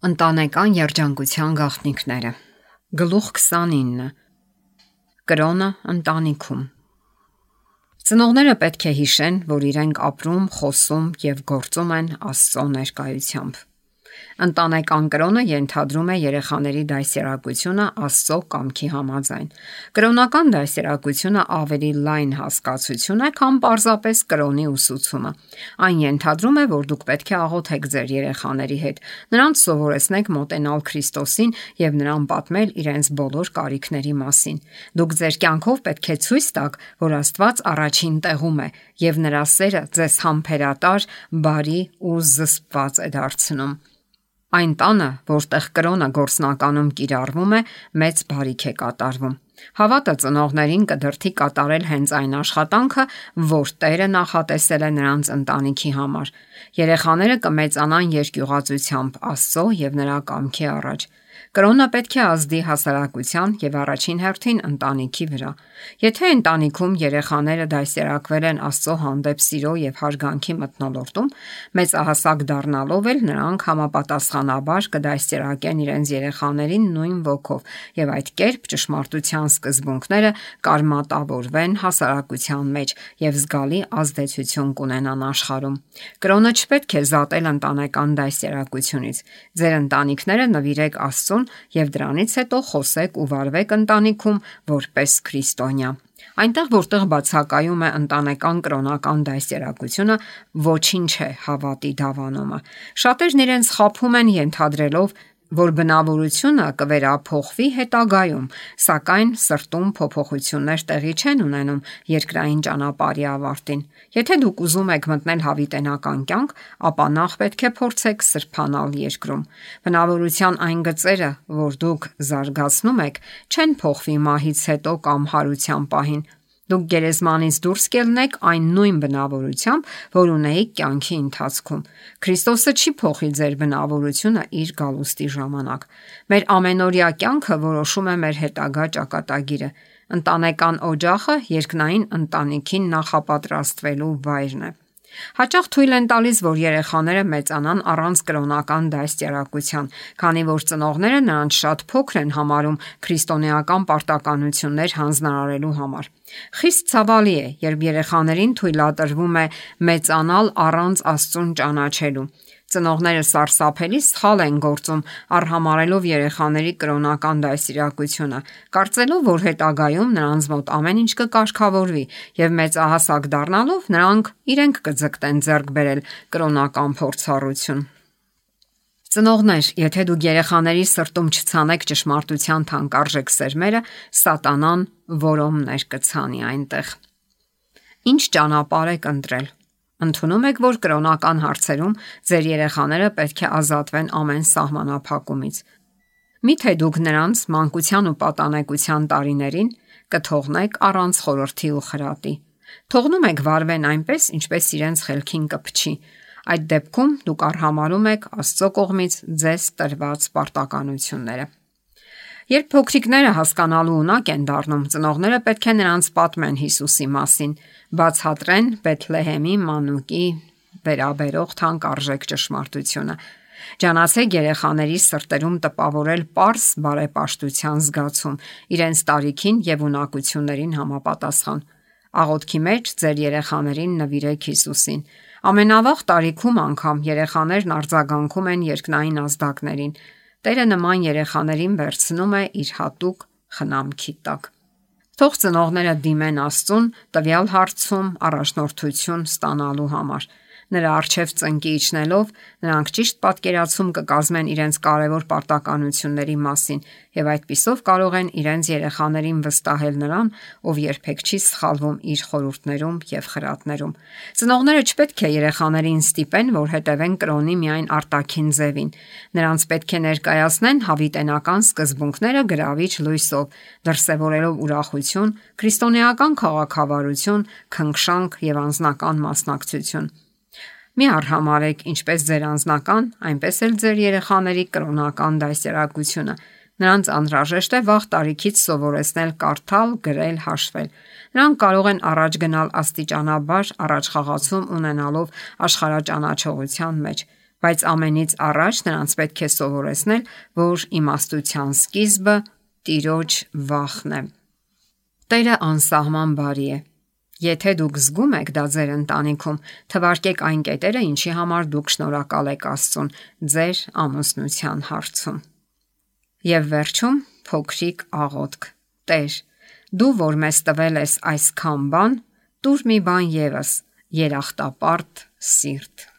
Ընտանեկան երջանկության գաղտնիքները։ Գլուխ 29։ Կրոնը ընտանիքում։ Ծնողները պետք է հիշեն, որ իրենք ապրում, խոսում եւ գործում են Աստծո ներկայությամբ։ Ընտանեկան կրոնը ենթադրում է երեխաների դաստիարակությունը Աստծո կամքի համաձայն։ Կրոնական դաստիարակությունը ավելի լայն հասկացություն է, քան պարզապես կրոնի ուսուցումը։ Այն ենթադրում է, որ դուք պետք է աղոթեք ձեր երեխաների հետ, նրանց սովորեցնեք մոտենալ Քրիստոսին եւ նրան պատմել իրենց բոլոր կարիքների մասին։ Դուք ձեր կյանքով պետք է ցույց տաք, որ Աստված առաջին տեղում է եւ նրա սերը ձեզ համբերատար, բարի ու զսպված է դարձնում։ Այն տանը, որտեղ կրոնը գործնականում կիրառվում է, մեծ բարիք է կատարվում։ Հավատը ծնողներին կդրթի կատարել հենց այն աշխատանքը, որ Տերը նախատեսել է նրանց ընտանիքի համար։ Երեխաները կմեծանան երկյուղածությամբ Աստծո եւ նրա կամքի առաջ։ Կրոնը պետք է ազդի հասարակության եւ առաջին հերթին ընտանիքի վրա։ Եթե ընտանիքում երեխաները դաստիարակվել են Աստծո հանդեպ սիրո եւ հարգանքի մթնոլորտում, մեծահասակ դառնալով էլ նրանք համապատասխանաբար կդաստիարակեն իրենց երեխաներին նույն ոգով եւ այդ կերպ ճշմարտության սկզբունքները կարմատավորվեն հասարակության մեջ եւ զգալի ազդեցություն կունենան աշխարհում։ Կրոնը չպետք է զատել ընտանեկան դաստիարակությունից։ Ձեր ընտանիքները նվիրեք Աստծուն եւ դրանից հետո խոսեք ու վարվեք ընտանիքում որպես քրիստոնյա։ Այնտեղ, որտեղ բացակայում է ընտանեկան կրոնական դաստիարակությունը, ոչինչ է հավատի դավանումը։ Շատերն իրենց խաբում են ենթադրելով, որ բնավորությունը կվերափոխվի հետագայում, սակայն սրտում փոփոխություններ տեղի չեն ունենում երկրային ճանապարհի ավարտին։ Եթե դուք ուզում եք մտնել հավիտենական կյանք, ապա նախ պետք է փորձեք սրբանալ երկրում։ Բնավորության այն գծերը, որ դուք զարգացնում եք, չեն փոխվի մահից հետո կամ հարության պահին։ Դուք գերեզմանից դուրս կելնեք այն նույն բնավորությամբ, որ ունեիք կյանքի ընթացքում։ Քրիստոսը չի փոխի ձեր բնավորությունը իր գալուստի ժամանակ։ Մեր ամենօրյա կյանքը որոշում է մեր հետագա ճակատագիրը։ Ընտանեկան օջախը երկնային ընտանիքին նախապատրաստվելու վայրն է։ Հաճախ թույլ են տալիս, որ երեխաները մեծանան առանց կրոնական դաստիարակության, քանի որ ծնողները նրանց շատ փոքր են համարում քրիստոնեական պարտականություններ հանձնարարելու համար։ Խիստ ցավալի է, երբ երեխաներին թույլատրվում է մեծանալ առանց Աստծուն ճանաչելու։ Ծնողները սարսափելի սխալ են գործում արհամարելով երեխաների կրոնական դաստիարակությունը, կարծելով, որ հետագայում նրանց մոտ ամեն ինչ կկարգավորվի եւ մեծահասակ դառնալով նրանք իրենք կձգտեն ձեռք բերել կրոնական փորձառություն։ Ծնողներ, եթե դուք երեխաների սրտում չցանեք ճշմարտության թանկարժեք սերմերը, սատանան որոմներ կցանի այնտեղ։ Ինչ ճանապարհ եք ընտրել։ Ընդունում եք, որ կրոնական հարցերում ձեր երեխաները պետք է ազատվեն ամեն սահմանափակումից։ Միթե դուք նրանց մանկության ու պատանեկության տարիներին կթողնեք առանց խորհրդի ու խրատի։ Թողնում եք վարվեն այնպես, ինչպես իրենց խելքին կփչի։ Այդ դեպքում դուք արհամարում եք Աստծո կողմից ձեզ տրված պարտականությունները։ Երբ փոքրիկները հասկանալու ունակ են դառնում, ծնողները պետք է նրանց պատմեն Հիսուսի մասին, բացատրեն Բեթլեհեմի մանուկի վերաբերող թանկարժեք ճշմարտությունը։ Ջանացեք երեխաների սրտերում տպավորել պարզ բարեպաշտության զգացում, իրենց տարիքին եւ ունակություններին համապատասխան։ Աղոթքի մեջ ձեր երեխաներին նվիրեք Հիսուսին։ Ամենավաղ տարիքում անգամ երեխաներն արձագանքում են երկնային ազդակներին։ Տերը նման երեխաներին վերցնում է իր հատուկ խնամքի տակ։ Թող ծնողները դիմեն Աստծուն տվյալ հարցում առաջնորդություն ստանալու համար։ Նրա առջև ծնկի իջնելով, նրանք ճիշտ պատկերացում կկազմեն իրենց կարևոր պարտականությունների մասին եւ այդպիսով կարող են իրենց երեխաներին վստահել նրան, ով երբեք չի սխալվում իր խորհուրդներում եւ խրատներում։ Ծնողները չպետք է երեխաներին ստիպեն, որ հետևեն կրոնի միայն արտաքին ձևին։ Նրանց պետք է ներկայացնեն հավիտենական սկզբունքները գրավիչ լույսով, դրսևորելով ուրախություն, քրիստոնեական քաղաքավարություն, քնքշանք եւ անձնական մասնակցություն։ Մի արհամարեք ինչպես ձեր անձնական, այնպես էլ ձեր երեխաների կրոնական դաստիարակությունը։ Նրանց անհրաժեշտ է վաղ տարիքից սովորեցնել կարդալ, գրել, հաշվել։ Նրանք կարող են առաջ գնալ աստիճանաբար առաջխաղացում ունենալով աշխարհաճանաչողության մեջ։ Բայց ամենից առաջ նրանց պետք է սովորեցնել, որ իմաստության սկիզբը Տիրոջ վախն է։ Տերը անսահման բարի է։ Եթե դուք զգում եք դա ձեր ընտանիքում, թվարկեք այն կետերը, ինչի համար դուք շնորհակալ եք Աստծուն ձեր ամուսնության հարցում։ Եվ վերջում փոքրիկ աղոթք. Տեր, դու որ մեզ տվել ես այսքան բան, տուր մի բան ևս՝ երախտապարտ սիրտ։